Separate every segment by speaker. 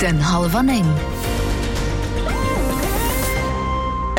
Speaker 1: Den Hallwer 9.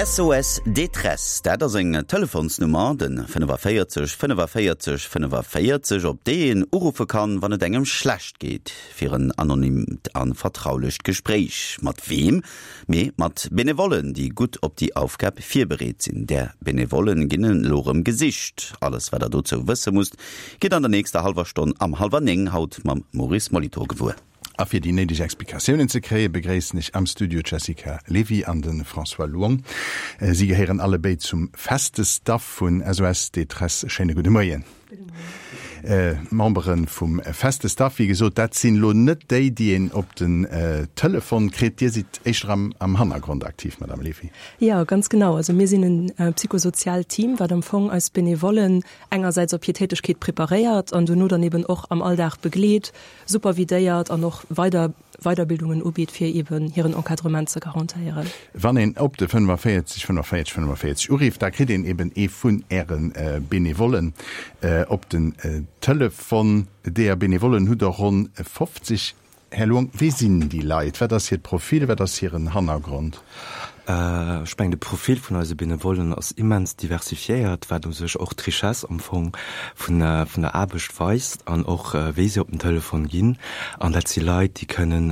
Speaker 2: SOS Détresse, dat ass eng Telefonsnummer, de 45 45 45, op déi een uruffe kann, wann et engem schlecht geet, fir en anonymt a vertraulecht Gespréich. Mat weem? Mee mat Benevollen, déi gutt op déi Aufgab virbereet sinn. Där Benevollen ginn elo rëm gesicht. Alles, wat der dozou wësse musst, Gitt an der nächster hallwer Stonn am hallwer 9 haut mam Maurice Molitor gewuer.
Speaker 3: A fir déi néideg Explikatiounen ze kréien, begréissen ech am Studio d'Jessica Levy an de François Luong. Si gehéieren alle béid zum feste Staff vun SOS Détresse. Schéine gudde Moien.
Speaker 4: Gudde Moien.
Speaker 3: D'Membere vum feste Staff, wéi gesot, dat sinn elo net déi, déi een op den Telefon kritt. Dir sidd éischter am Hannergrond aktiv, Madame Levy.
Speaker 4: Jo, ganz genau. Also mir sinn e psychosoziaalt Team, wat am Fong eis Benevollen engersäits op hir Tätegkeet preparéiert an dono dann eben och am Alldag begleet, supervidéiert an och weider Weiderbildungen ubitt, fir eben hiren Encadrement ze garantéieren.
Speaker 3: Wann een op de 45 45 45 urifft, da kritt een eben ee vun Äre Benevollen op den Telefon. Deeër Benevollen hutt Der ronn 50. Här Luong, wie sinn déi Leit? Wat ass hiert Profil? Wat ass hiren Hannergrond?
Speaker 5: Ech mengen, de Profil vun eise Benevollen ass immens diversifiéiert, wat u sech och d'Richesse am Fong vun der Aarbecht weist an och wéi se op den Telefon ginn. An dat si Leit, déi kënnen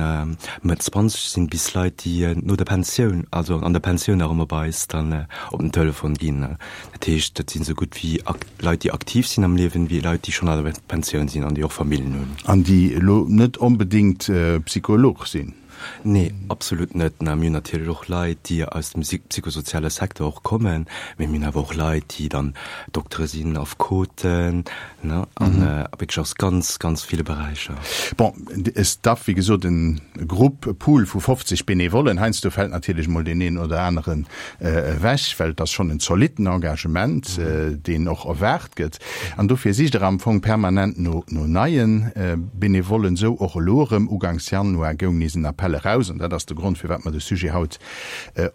Speaker 5: Mëtt 20 sinn, bis Leit, déi no der Pensioun, also an der Pensioun nach ëmmer bei eis dann op den Telefon ginn. Dat heescht, dat sinn esou gutt wéi Leit, déi aktiv sinn am Liewen, wéi Leit, déi schonn an der Pensioun sinn an déi och Familljen hunn.
Speaker 3: An déi elo net onbedéngt Psycholog sinn?
Speaker 5: Nee, absolut net. Mir hunn natierlech och Leit, déi aus dem psychosoziale Secteur och kommen, mee mir hunn awer och Leit, déi dann Doktere sinn, Affekoten, ne, an wierklech aus ganz, ganz ville Beräicher.
Speaker 3: Bon, e Staff, wéi gesot, e Grupp, e Pool vu 50 Benevollen. Heiansdo fält natierlech emol deen een oder aneren ewech, well et ass schonn en zolitten Engagement, deen och erwaart gëtt. An dofir sicht Der am Fong permanent no neie Benevollen. Esou och elo erëm. Uganks Januar goung nees en Appell eraus, an dat ass de Grond, firwat mer de Sujet haut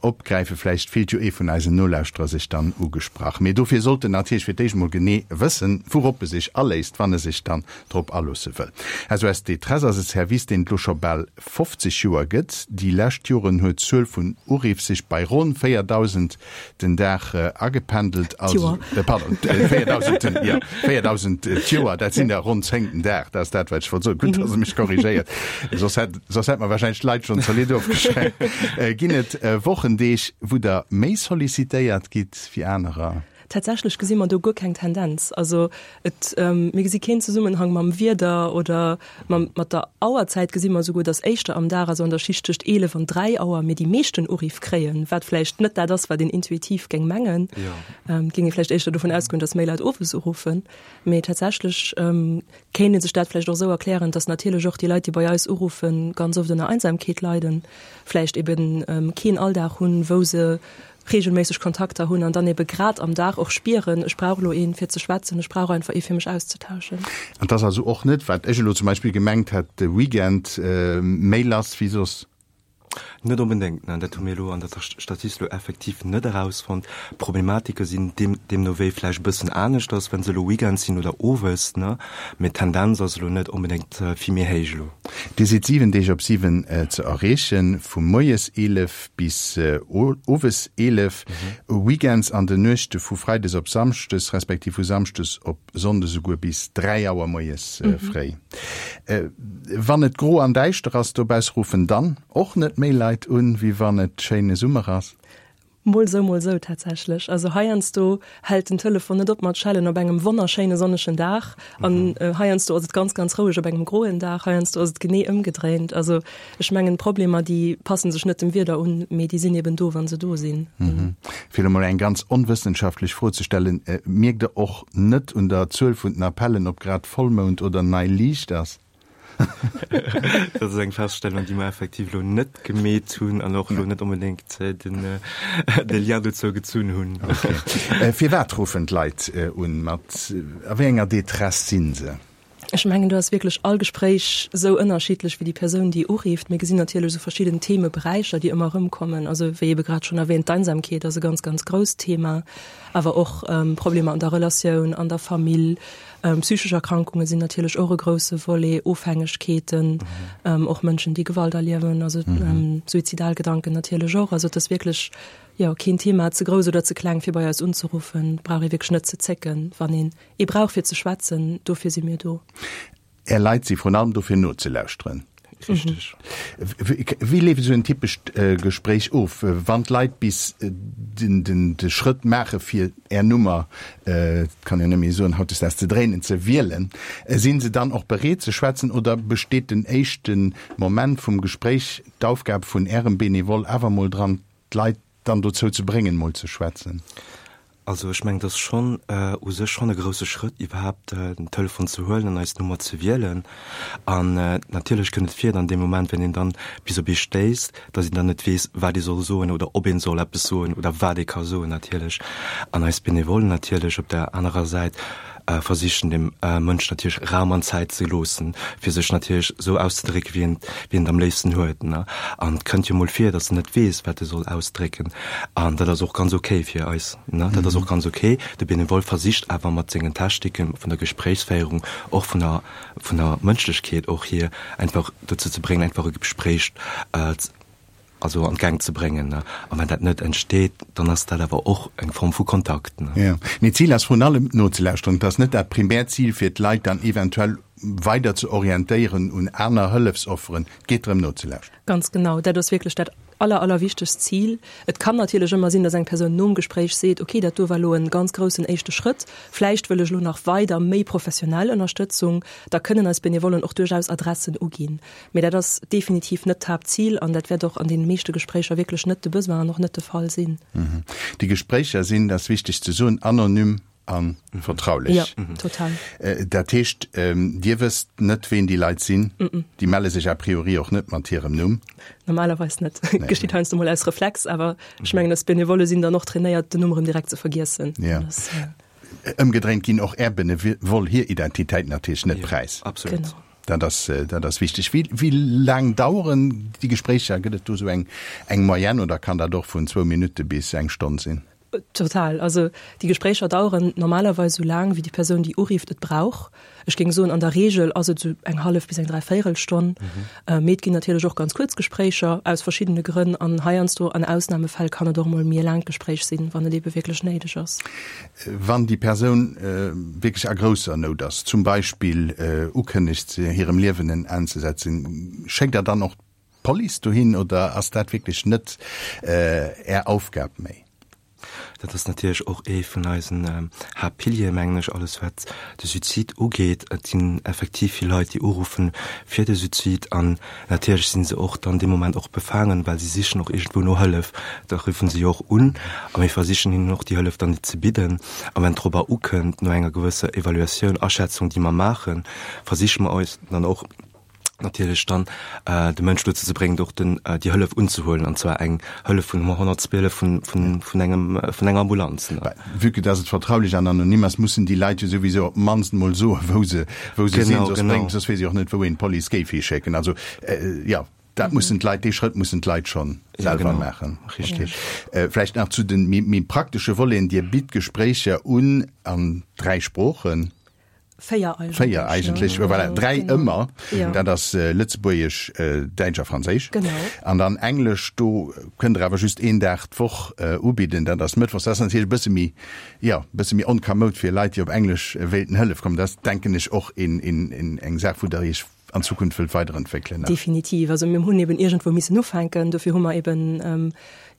Speaker 3: opgräifen. Vläicht fillt jo ee vun eisen Nolauschterer sech dann ugesprach. Mee dofir sollt en natierlech fir d'éischt emol genee wëssen, wourop e sech aléisst, wann e sech dann drop aloosse wëll. SOS Détresse ass e Service, deen et elo scho bal 50 Joer gëtt. Déi lescht Joren huet d'Zuel vun Uriff sech bei ronn 4.000 den Dag agependelt.
Speaker 4: D'Joer.
Speaker 3: Pardon, 4.000 den, jo, 4.000 d'Joer, dat sinn der ronn 10 den Dag. Dat ass dat, wat ech wollt soen. Gutt, dass Der mech korrigéiert, soss hätt, soss hätt mer wahrscheinlech d'Leit schonn zolidd ofgeschreckt. Ginn et Wochendeeg, wou Der méi sollicitéiert gitt wéi anerer?
Speaker 4: Tatsächlech gesi mer do guer keng Tendenz. Also et, mir gesi keen Zesummenhang mam Wieder oder mam, mat der Auerzäit gesi mer esouguer, datt éischter am Dag, also an der Schicht tëscht 11 an 3 Auer, mir déi meeschten Uriff kréien, wat vläicht net dat ass, wat een intuitiv géing mengen. Et géing ee vläicht éischter dovun ausgoen, datt méi Leit owes uruffen. Mee tatsächlech kéint ee sech dat vläicht och esou erklären, datt natierlech och déi Leit, déi bei eis uruffen, ganz oft ënner Einsamkeet leiden, vläicht eben keen Alldag hunn, wou se regelméisseg Kontakter hunn an dann ebe grad am Dag och spieren, ech brauch elo een fir ze schwätzen, ech brauch einfach ee fir mech auszetauschen.
Speaker 3: An 't ass also och net, wat ech elo zum Beispill gemengt hätt, de Weekend méi lass wéi soss?
Speaker 5: Net onbedéngt, nein, dat hu mir elo an der Statistik elo effektiv net erausfonnt. D'Problematike sinn deemno wéi vläicht e bëssen aneschters, wa se elo Weekends sinn oder owes, ne, mee d'Tendenz ass elo net onbedéngt vill méi héich elo.
Speaker 3: Dir sidd 7 Deeg op 7 ze erreechen, vu moies 11 bis owes 11, weekends an den Nuechte vu freides op samschdes, respektiv vu samschdes op sonndes esouguer bis 3 Auer moies fréi. Wann et gro an däischter ass dobausse, ruffen dann och net méi Leit un, wéi wann et schéine Summer ass?
Speaker 4: Mol sou, mol sou tatsächlech. Also heiansdo hält den Telefon net op mat schellen op engem wonnerschéine sonnegen Dag an heiansdo ass et ganz, ganz roueg op engem groen Dag. Heiansdo ass et genee ëmgedréint. Also ech mengen d'Problemer déi passen sech net dem Wieder un, mee déi sinn eben do, wa se do sinn.
Speaker 3: Fir elo mol eng ganz onwëssenschaftlech Fro ze stellen, Mierkt Der och net un der Zuel vun den Appellen, ob grad Vollmound oder nei Liicht ass?
Speaker 5: Dat ass eng Feststellung, déi mer effektiv elo net gemeet hunn an och elo net onbedéngt de Lien dozou gezunn hunn.
Speaker 3: Okay. Firwat ruffen d'Leit un? Mat a wéi enger Détresse si se?
Speaker 4: Ech mengen, do ass wierklech all Gespréich esou ënnerschiddlech wéi déi Persoun, déi urifft. Mir gesinn natierlech esou verschidden Themeberäicher, déi ëmmer erëmkommen. Also wéi ebe grad schonn erwähnt, d'Einsamkeet ass e ganz, ganz grousst Thema, awer och Problemer an der Relatioun, an der Famill, psychesch Erkrankunge sinn natierlech och e grousse Volet, Ofhängegkeeten, och Mënschen, déi Gewalt erliewen, also suizidal Gedanken natierlech och. Also et ass wierklech, jo, keen Thema ze grouss oder ze kleng, fir bei eis unzeruffen. Et brauch ee wierklech net ze zécken, wann een Ee brauch fir ze schwätzen, dofir si mir do.
Speaker 3: Är Leit si vrun allem do fir nozelauschteren.
Speaker 5: Richteg.
Speaker 3: Wéi leeft esou en typescht Gespréich of, wann d'Leit bis de Schrëtt maache fir Är Nummer, et kann een net méi soen hautdesdaags ze dréinen, ze wielen? Sinn se dann och bereet ze schwätzen oder besteet den éischte Moment vum Gespréich d'Aufgab vun Ärem Benevole awer mol dran, d'Leit dann dozou ze bréngen, mol ze schwätzen?
Speaker 5: Also ech mengen, et ass schonn u sech schonn e grouse Schrëtt, iwwerhaapt den Telefon ze huelen an eis Nummer ze wielen. An natierlech kënnt et vir, dann dee Moment, wenn een dann bis op ee stéisst, datt een dann net weess, wat ee soll soen oder ob een soll eppes soen oder wat ee ka soen natierlech. An eis Benevollen natierlech op der anerer Säit versichen, dem Mënsch natierlech Raum an Zäit ze loossen, fir sech natierlech esou auszedrécken, wéi en, wéi en et am léifsten huet. An et kënnt jo mol vir, datt en net weess, wat e soll ausdrécken. An dat ass och ganz okay fir eis. Dat ass och ganz okay. De Benevole versicht awer mat sengen Techniken vun der Gespréichsféierung, och vun der, vun der Mënschlechkeet och hier, einfach dozou ze bréngen, einfach e Gespréich also an d'Gäng ze bréngen. A wann dat net entsteet, dann ass dat awer och eng Form vu Kontakt.
Speaker 3: Jo, mee d'Zil ass vrun allem nozelauschteren. Et ass net dat primäert Zil, fir d'Leit dann eventuell weider ze orientéieren un aner Hëllefsofferen. Et geet drëm nozelauschteren.
Speaker 4: Ganz genau, dat ass wierklech dat aller, allerwichtegst Zil. Et kann natierlech ëmmer sinn, dass eng Persoun nom Gespréich seet, okay, dat do war elo e ganz groussen éischte Schrëtt, vläicht wëll ech elo nach weider méi professionell Ënnerstëtzung. Da kënnen eis Benevollen och duerchaus Adressen uginn. Mee dat ass definitiv net d'Haaptzil an dat wäert och an deene meeschte Gespréicher wierklech net de Besoin an och net de Fall sinn.
Speaker 3: Déi Gespréicher sinn, dat ass wichteg ze soen, anonym a vertraulech.
Speaker 4: Jo, total.
Speaker 3: Dat heescht, Dir wësst net, ween déi Leit sinn? Déi melle sech a priori och net mat hirem Numm?
Speaker 4: Normalerweis net. Geschitt heiansdo mol aus Reflex, awer ech mengen, eis Benevolle sinn dann och trainéiert, den Numm erëm direkt ze vergiessen.
Speaker 3: Jo. Ëmgedréint ginn och Är Benevoll hir Identitéit natierlech net präis.
Speaker 5: Absolut.
Speaker 4: Genau.
Speaker 3: Dat ass, dat ass wichteg. Wéi, wéi laang daueren déi Gespréicher? Gëtt et do esou eng, eng Moyenne oder kann dat och vun zwou Minutte bis eng Stonn sinn?
Speaker 4: Total. Also déi Gespréicher daueren normalerweis esou laang, wéi déi Persoun, déi urifft, et brauch. Ech géing soen, an der Reegel ass et esou eng hallef bis eng Dräivéierelstonn. Mee et ginn natierlech och ganz kuerz Gespréicher, aus verschiddene Grënn. An heiansdo, an Ausnamefäll, kann et och emol méi e laangt Gespréich sinn, wann et eebe wierklech néideg ass.
Speaker 3: Wann déi Persoun wierklech a grousser Nout ass, zum Beispill ukënnegt, hirem Liewen en Enn ze setzen, schéckt Der dann och d'Police dohin oder ass dat wierklech net Är Aufgab méi?
Speaker 5: Dat ass natierlech och ee vun eisen Haaptpiliere, mengen ech, alles wat de Suizid ugeet. Et sinn effektiv vill Leit, déi uruffen fir de Suizid an Natierlech sinn se och dann dee Moment och befaangen, well si sichen och iergendwou no Hëllef. Da ruffen se jo och un a mir versichen hinnen och déi Hëllef dann ze bidden. A wenn et dorobber ukënnt, no enger gewësser Evaluatioun, Aschätzung, déi mer maachen, versiche mer eis dann och natierlech dann de Mënsch dozou ze bréngen, och den, déi Hëllef unzehuelen, an zwar eng Hëllef vun 112, vun, vun, vun engem, vun enger Ambulanz.
Speaker 3: Vue que dass et vertraulech an anonym ass, mussen déi Leit jo souwisou op d'mannst mol soen, wou se, wou se sinn, soss bréngt, soss weess ee och net, wou een d'Police géif hischécken. Also, jo, dat mussen d'Leit, dee Schrëtt mussen d'Leit schonn selwer maachen.
Speaker 5: Richtig.
Speaker 3: Vläicht nach zu de méi, méi praktesche Voleten, Dir bitt Gespréicher un an 3 Sproochen.
Speaker 4: Véier eigentlech.
Speaker 3: Véier eigentlech, ne? Voilà, dräi genau. ëmmer. Ja. Dat ass äh, Lëtzebuergesch, äh, Däitsch a Franséisch.
Speaker 4: Genau.
Speaker 3: An dann Englesch, do kënnt der awer just een Dag d'Woch äh, ubidden, dat ass Mëttwochs. Dat ass natierlech e bësse méi, ja, e bësse méi onkamoud fir Leit, déi op Englesch äh, wéilten Hëllef kommen. Dat ass, denken ech, och een, een, een, eng Saach, wou der Iech an Zukunft wëllt weiderentwéckelen.
Speaker 4: Definitiv. Also mir hunn eben iergendwou missen ufänken. Dofir hu mer eben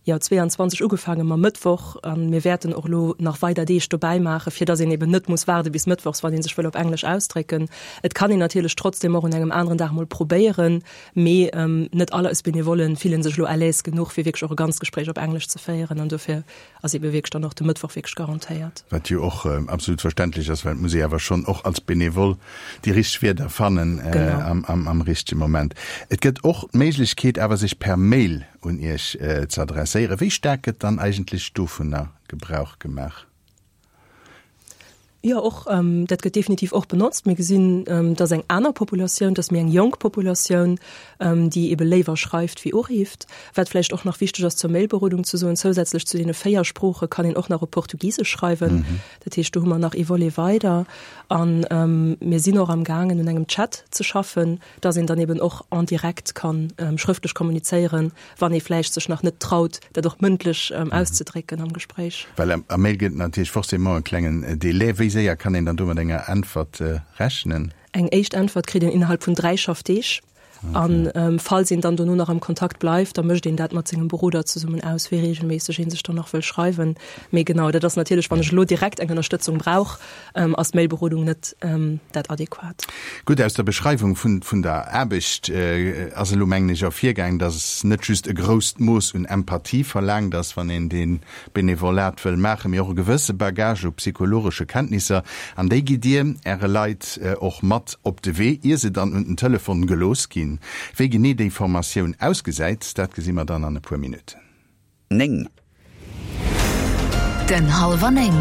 Speaker 4: jo 22 ugefaange mam Mëttwoch a mir wäerten och elo nach weider Deeg dobäi maachen, fir datt een eben net muss waarde bis mëttwochs, wann ee sech wëll op Englesch ausdrécken. Et kann een natierlech trotzdem och un engem aneren Dag mol probéieren, mee net all eis Benevollen fillen sech elo à l'aise genuch, fir wierklech och e ganzt Gespréich op Englesch ze féieren an dofir ass ebe wierklech dann och de Mëttwoch wierklech garantéiert.
Speaker 3: Wat jo och absolut verständlech ass, well et muss ee awer schonn och als Benevole déi richteg Wierder fannen am richtege Moment. Et gëtt och d'Méiglechkeet awer sech per Mail un Iech ze adresséieren. Wéi staark gëtt dann eigentlech dovunner Gebrauch gemaach?
Speaker 4: Jo, och dat gëtt definitiv och benotzt. Mir gesinn, dass eng aner Populatioun, dass méi eng jonk Populatioun, déi ebe léiwer schreift wéi urifft. Wat vläicht och nach wichteg ass zur Mailberodung ze soen, zousätzlech zu deene 4 Sprooche kann een och nach op Portugisesch schreiwen. Dat heescht, do hu mer nach ee Volet weider. A mir sinn och am gaangen un engem Chat ze schaffen, dass een dann eben och en direct kann schrëftlech kommunizéieren, wann ee vläicht sech nach net traut, dat och mëndlech auszedrécken am Gespréich.
Speaker 3: Well am Mail gëtt et natierlech forcément e klengen Délai. Wéi séier kann een dann do mat enger Äntwert rechnen?
Speaker 4: Eng éischt Äntwert kritt een innerhalb vun 3 Schaffdeeg. An falls een dann dono nach am Kontakt bleift, da mécht een dat mat sengem Beroder zesummen aus, wéi reegelméisseg ee sech dann nach wëll schreiwen. Mee genau, dat ass natierlech, wann ech elo direkt eng Ënnerstëtzung brauch, ass d'Mailberodung net dat adequat.
Speaker 3: Gutt, aus der Beschreiwung vun der Aarbecht ass elo, mengen ech, ervirgaang, dass net just e grousst Mooss un Empathie verlaangt ass, wann een dee Benevolat wëll maachen, mee och e gewësse Bagage u psychologesche Kenntnisser. An déi gitt Dir Äre Leit och mat op de Wee, ier se dann un den Telefon gelooss ginn. Wéi genee déi Formatioun ausgesäit, dat gesi mer dann an e puer Minutten.
Speaker 2: 9.
Speaker 1: Den Hallwer 9.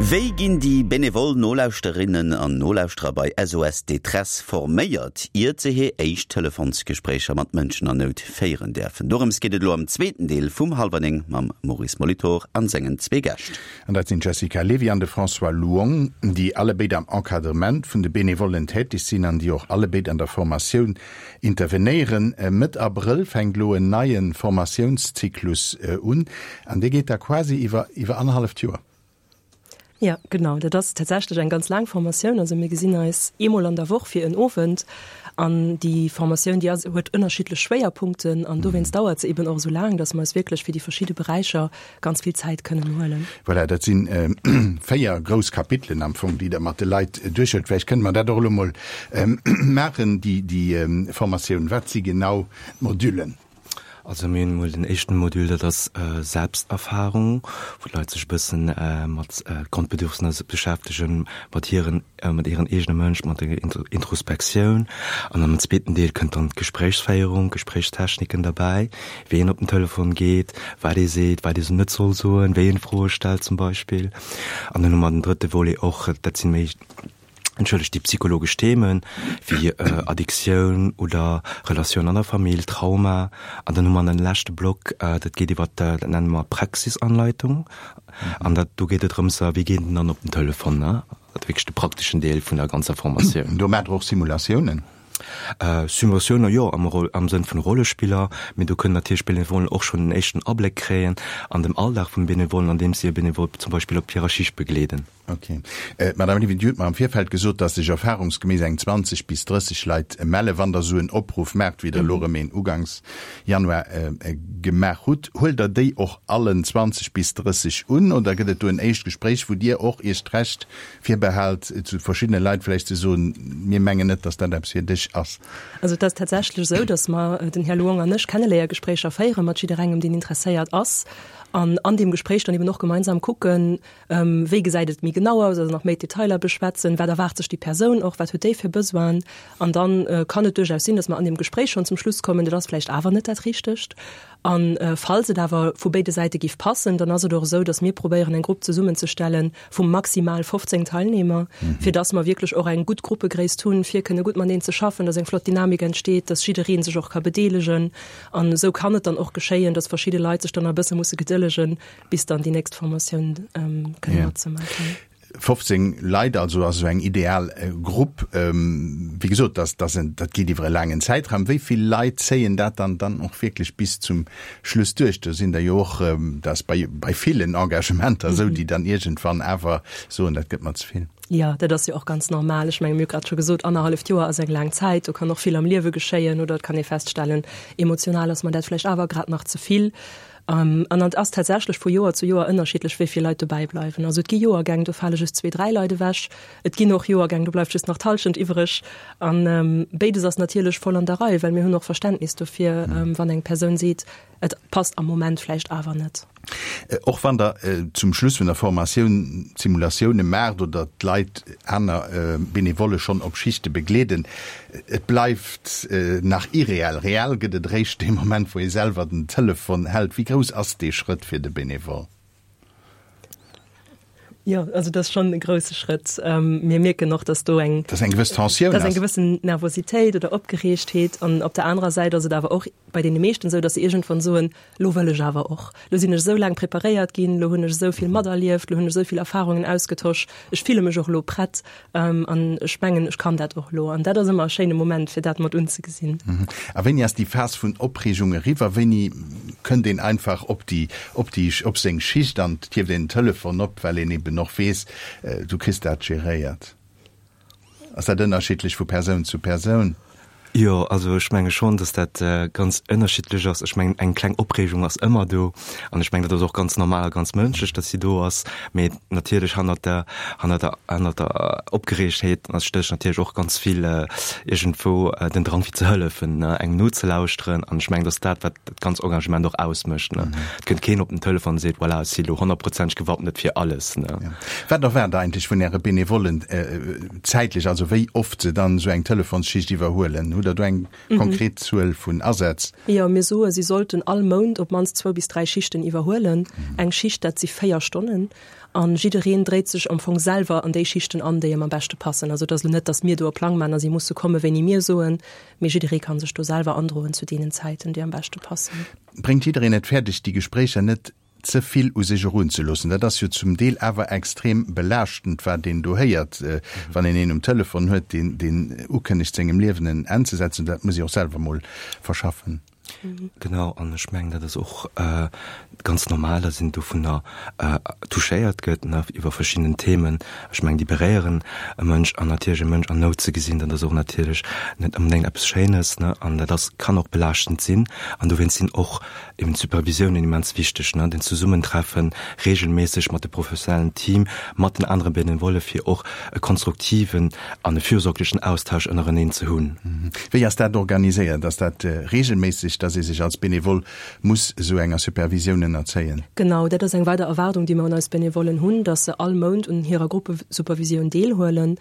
Speaker 2: Wéi ginn déi benevol Nolauschterinnen an Nolauschterer bei SOS Détresse forméiert, iert se hir éischt Telefonsgespréicher mat Mënschen an Nout féieren däerfen? Dorëms geet et elo am zweeten Deel vum Hallwer 9 mam Maurice Molitor an sengen zwee Gäscht.
Speaker 3: An dat sinn d'Jessica Levy an de François Luong, déi allebéid am Encadrement vun de Benevollen täteg sinn an déi och allebéid an der Formatioun Intervenéieren. Mëtt Abrëll fänkt elo en neie Formatiounszyklus un an dee geet da quasi iwwer iwwer annerhalleft Joer.
Speaker 4: Jo, genau. Dat ass tatsächlech eng ganz laang Formatioun. Also mir gesinn eis eemol an der Woch fir en Owend an déi Formatioun, déi ass, huet ënnerschiddlech Schwéierpunkten an dowéinst dauert se eben och esou laang, datt mer eis wierklech fir déi verschidde Beräicher ganz vill Zäit kënnen huelen.
Speaker 3: Voilà, dat si 4 grouss Kapitelen am Fong, déi Der mat de Leit duerchhuelt. Vläicht kënne mer dat och elo emol maachen, déi Formatioun. Wat si genau d'Modüllen?
Speaker 5: Also mir hunn emol den éischten Module, dat ass Selbsterfahrung, wou d'Leit sech e bëssen mat Grondbedürfnisser beschäftegen, mat hiren, mat hiren eegene Mënsch, mat der Introspektioun. An am zweeten Deel kënnt dann d'Gespréichsféierung, Gespréichstechniken derbäi. wéi een op den Telefon geet, wat ee seet, wat ee net soll soen, wéi een Froe stellt zum Beispill. An dann hu mer den drëtte Volet och, dat sinn méi, entschëllegt, déi psychologesch Themen, wéi Addiktioun oder Relatioun an der Famill, Trauma. An dann hu mer en leschte Block, dat geet iwwer, dat nenne mer Praxisanleitung. An dat, do geet et drëms, wéi geet een dann op den Telefon, ne? Dat wierklech de prakteschen Deel vun der ganzer Formatioun.
Speaker 3: Do maacht Der och Simulatiounen?
Speaker 5: Simulatiounen, jo, am Roll, am Sënn vun Rollespiller, mee do kënnen natierlech d'Benevollen och schonn en éischten Abléck kréien an dem Alldag vum Benevollen, andeems si e Benevole zum Beispill op hirer Schicht begleeden.
Speaker 3: Ok. D'Madame Levy, Dir hutt mer am Virfeld gesot, dass sech erfahrungsgemäss eng 20 bis 30 Leit mellen, wann Der esou en Opruff maacht, wéi Der elo erëm een uganks Januar gemaach hutt. Huelt Der déi och allen 20 bis 30 un oder gëtt et do en éischt Gespréich, wou Dir och Iech d'Recht virbehält, zu verschiddene Leit vläicht ze soen, mir mengen net, dass dat eppes fir dech ass?
Speaker 4: Also et ass tatsächlech esou, dass mer, den Här Luong an ech, Kenneléiergespréicher féiere mat jidderengem, deen interesséiert ass, an an deem Gespréich dann eben och gemeinsam kucken, wéi gesäit et méi genau aus, also nach méi d'Detailer beschwätzen, wat erwaart sech déi Persoun och, wat huet déi fir Besoinen. An dann kann et duerchaus sinn, dass mer an deem Gespréich schonn zum Schluss kommen, dat ass vläicht awer net dat Richtegt. A falls et awer vu béide Säite giff passen, dann ass et och esou, dass mir probéieren eng Grupp zesummenzestelle vu maximal 15 Teilnehmer, fir dass mer wierklech och eng gutt Gruppegréisst hunn, fir kënne gutt mateneen ze schaffen, dass eng flott Dynamik entsteet, dass jidderee sech och ka bedeelegen. An esou kann et dann och geschéien, dass verschidde Leit sech dann nach e bësse musse gedëllegen, bis dann déi nächst Formatioun kënne matzemaachen.
Speaker 3: 15 Leit also ass esou eng ideal Grupp. Wéi gesot, dat ass en, dat geet iwwer e laangen Zäitraum. Wéi vill Leit zéien dat dann dann och wierklech bis zum Schluss duerch? Do sinn der jo och, dat ass bei bei villen Engagementer esou, déi dann iergendwann awer soen, dat gëtt mer ze vill.
Speaker 4: Jo, dat ass jo och ganz normal. Ech menge mir hu grad scho gesot, annerhalleft Joer ass eng laang Zäit. Do kann och vill am Liewe geschéien oder et kann ee feststellen, emotional ass mer dat vläicht awer grad nach ze vill. An et ass tatsächlech vu Joer zu Joer ënnerschiddlech, wéi vill Leit dobäi bleiwen. Also et gi Joergäng, do fale just zwee, dräi Leit ewech. Et ginn och Joergäng, do bleift just nach d'Hallschent iwwereg. A béides ass natierlech voll an der Rei, well mir hunn och Verständnis dofir, wann eng Persoun seet, et passt am Moment vläicht awer net.
Speaker 3: Och wann Der zum Schluss vun der Formatioun Simulatioune maacht oder d'Leit, aner Benevolle schonn op Schichte begleeden, Et bleift nach irreell. Reell gëtt et eréischt dee Moment, wou ee selwer den Telefon hält. Wéi grouss ass dee Schrëtt fir de Benevole?
Speaker 4: Jo, also dat ass schonn e grousse Schrëtt. Mir mierken och, datt do eng.
Speaker 3: Datt eng gewëss Tensioun
Speaker 4: ass. Datt eng gewëssen Nervositéit oder Opgereegtheet. An op der anerer Säit ass et awer och bei deene meeschten esou, datt se iergendwann soen, Lo wëll ech awer och. Lo sinn ech esou laang preparéiert ginn, lo hunn ech esou vill materlieft, lo hunn ech esou vill Erfarungen ausgetosch, ech fille mech och elo prett an ech mengen, ech kann dat och elo. An dat ass ëmmer e schéine Moment, fir dat mat unzegesinn.
Speaker 3: A wéini ass déi Phas vun Opreegung eriwwer? Wéini kënnt een einfach op déi, op déi, op seng Schicht an et hieft een den Telefon op, well een eben och weess, du kriss dat geréiert? Ass dat ënnerschiddlech vu Persoun zu Persoun?
Speaker 5: Jo, also ech menge schonn, datt dat ganz ënnerschiddlech ass. Ech mengen, eng kleng Opreegung ass ëmmer do an ech mengen, dat ass och ganz normal a ganz mënschlech, datt si do ass. Mee natierlech hannert der, hannert der, hannert der Opgereegtheet stécht natierlech och ganz vill iergendwou den Drang fir ze hëllefen, ne, engem nozelauschteren. An ech mengen, datt dat, wat dat ganz Engagement och ausmécht, ne. Et kënnt keen op den Telefon an seet, voilà, ech si elo honnertprozenteg gewappnet fir alles, ne.
Speaker 3: Wat erwaart Der eigentlech vun Äre Benevollen zäitlech, also wéi oft se dann esou eng Telefonsschicht iwwerhuelen? Hutt Der do eng konkret Zuel vun Asätz?
Speaker 4: Jo, mir soe si sollten all Mount op d'mannst zwou bis dräi Schichten iwwerhuelen. Eng Schicht, dat si véier Stonnen. A jiddereen dréit sech am Fong selwer an déi Schichten an, déi em am beschte passen. Also et ass elo net, datt mir do e Plang maachen a si musse komme wéini mir soen, mee jidderee ka sech do selwer androen zu deenen Zäiten, déi am beschte passen.
Speaker 3: Bréngt jiddereen et fäerdeg, déi Gespréicher net ze vill u sech erunzeloossen. Dat ass jo zum Deel awer extrem belaaschtend, wat een do héiert, wann een een um Telefon huet, deen, deen ukënnegt, sengem Liewen en Enn ze setzen. Dat muss ee och selwer mol verschaffen.
Speaker 5: Genau, an ech mengen, dat ass och ganz normal, datt een dovunner touchéiert gëtt, ne, iwwer verschidden Themen. Ech mengen, déi beréieren e Mënsch an natierlech e Mënsch an Nout ze gesinn, dat ass och natierlech net onbedéngt eppes Schéines, ne, an dat ass, kann och belaaschtend sinn. An dowéinst sinn och Eben d'Supervisiounen immens wichteg, ne, den Zesummentreffen regelméisseg mat de professionellen Team, mat den anere Benevolle fir och e konstruktiven an e fürsorglechen Austausch ënnereneen ze hunn.
Speaker 3: Wéi ass dat organiséiert? Ass dat regelméisseg, dass ee sech als Benevole muss esou enger Supervisioun ënnerzéien?
Speaker 4: Genau, dat ass eng weider Erwaardung, déi mer un eis Benevollen hunn, dass se all Mount un hirer Gruppesupervisioun deelhuelen.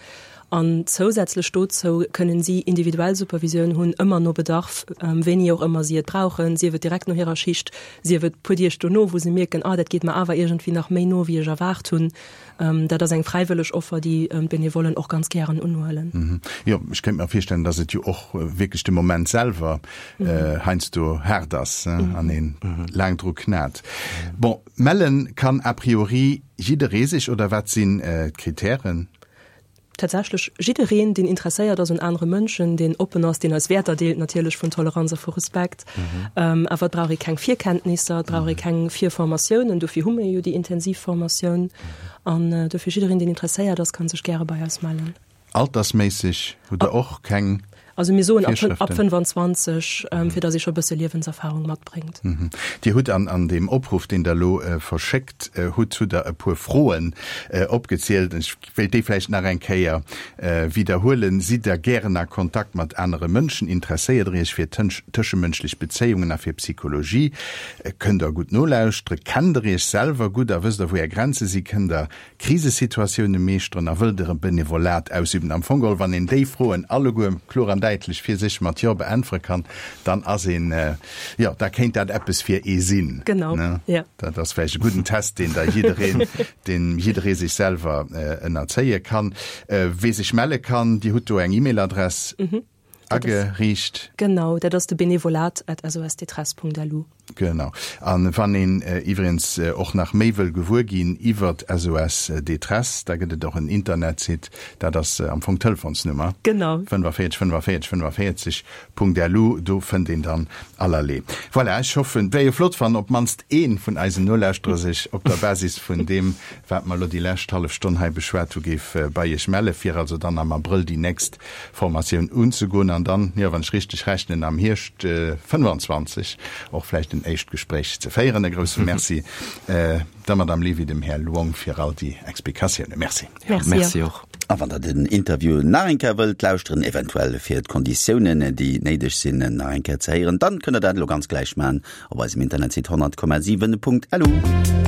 Speaker 4: An zousätzlech dozou kënnen si individuell Supervisioun hunn, ëmmer no Bedarf, wéini och ëmmer si et brauchen, sief et direkt no hirer Schicht, sief et puer Deeg dono, wou se mierken, ah dat geet mer awer iergendwéi nach méi no, wéi ech erwaart hunn. Dat ass eng fräiwëlleg Offer, déi d'Benevollen och ganz gären unhuelen.
Speaker 3: Jo, ech kéint mer virstellen, dass et jo och wierklech de Moment selwer heiansdo haart ass an ee laang dru knat. Bon, melle kann a priori jidderee sech, oder wat sinn d'Kritären?
Speaker 4: Tatsächlech jiddereen, deen interesséiert ass un anere Mënschen, deen oppen ass, deen eis Wäerter deelt natierlech vun Toleranz a vu Respekt. Awer et brauch ee keng Virkenntnisser, et brauch ee keng Virformatiounen, dofir hu mir jo déi intensiv Formatioun. An dofir jiddereen, deen interesséiert ass, ka sech gäre bei eis mellen.
Speaker 3: Altersméisseg hutt Der och keng
Speaker 4: Also mir soen ab 25, fir datt ee scho e bësse Liewenserfarung matbréngt.
Speaker 3: Dir hutt an an deem Opruff, deen Der elo verschéckt hutt, hutt Der e puer Froen opgezielt. Ech wéilt déi vläicht nach eng Kéier widderhuelen. Sidd Der gären a Kontakt mat anere Mënschen? Interesséiert Der Iech fir tëschemënschlech Bezéiungen a fir Psychologie? Kënnt Der gutt nolauschteren? Kennt Der Iech selwer gutt a wësst Der, wou Är Grenze si? Kënnt Der Krisesituatioune meeschteren a wëllt Der e Benevolat ausüben? Am Fong geholl, wann een déi Froen alleguer kloer an däitlech fir sech mat Jo beäntwere kann, dann ass een, jo, da kéint dat eppes fir ee sinn.
Speaker 4: Genau, jo.
Speaker 3: Dat ass vläicht e gudden Test, deen da jiddereen, deen jidderee sech selwer ënnerzéie kann. Wee sech melle kann, Dir hutt do eng E-Mail-Adress ageriicht.
Speaker 4: Genau, dat ass de benevolat at sosdetresse.lu.
Speaker 3: Genau. A wann een iwwregens och nach méi wëll gewuer ginn iwwert SOS Détresse, da gëtt et och en Internetsite, dat ass am Fong d'Telefonsnummer.
Speaker 4: Genau.
Speaker 3: 45 45 45 Punkt lu, do fënnt een dann allerlee. Voilà, ech hoffen, et wär jo flott, wann op d'mannst ee vun eisen Nolauschterer sech op der Basis vun deem, wat mer elo déi lescht hallef Stonn hei beschwat hu, géif bei Iech melle fir also dann am Abrëll déi nächst Formatioun unzegoen an dann, jo, wann ech richteg rechnen, am Hierscht 25 och vläicht en éischt Gespréich ze féieren. E grousse Merci der Madame Levy, dem Här Luong fir all déi Explikatiounen. Merci.
Speaker 5: Merci och.
Speaker 2: A wann der den Interview nach eng Kéier wëllt lauschteren, eventuell fir d'Konditiounen, déi néideg sinn, nach eng Kéier ze héieren, dann kënnt der dat elo ganz gläich maachen op eisem Internetsite 100,7.lu.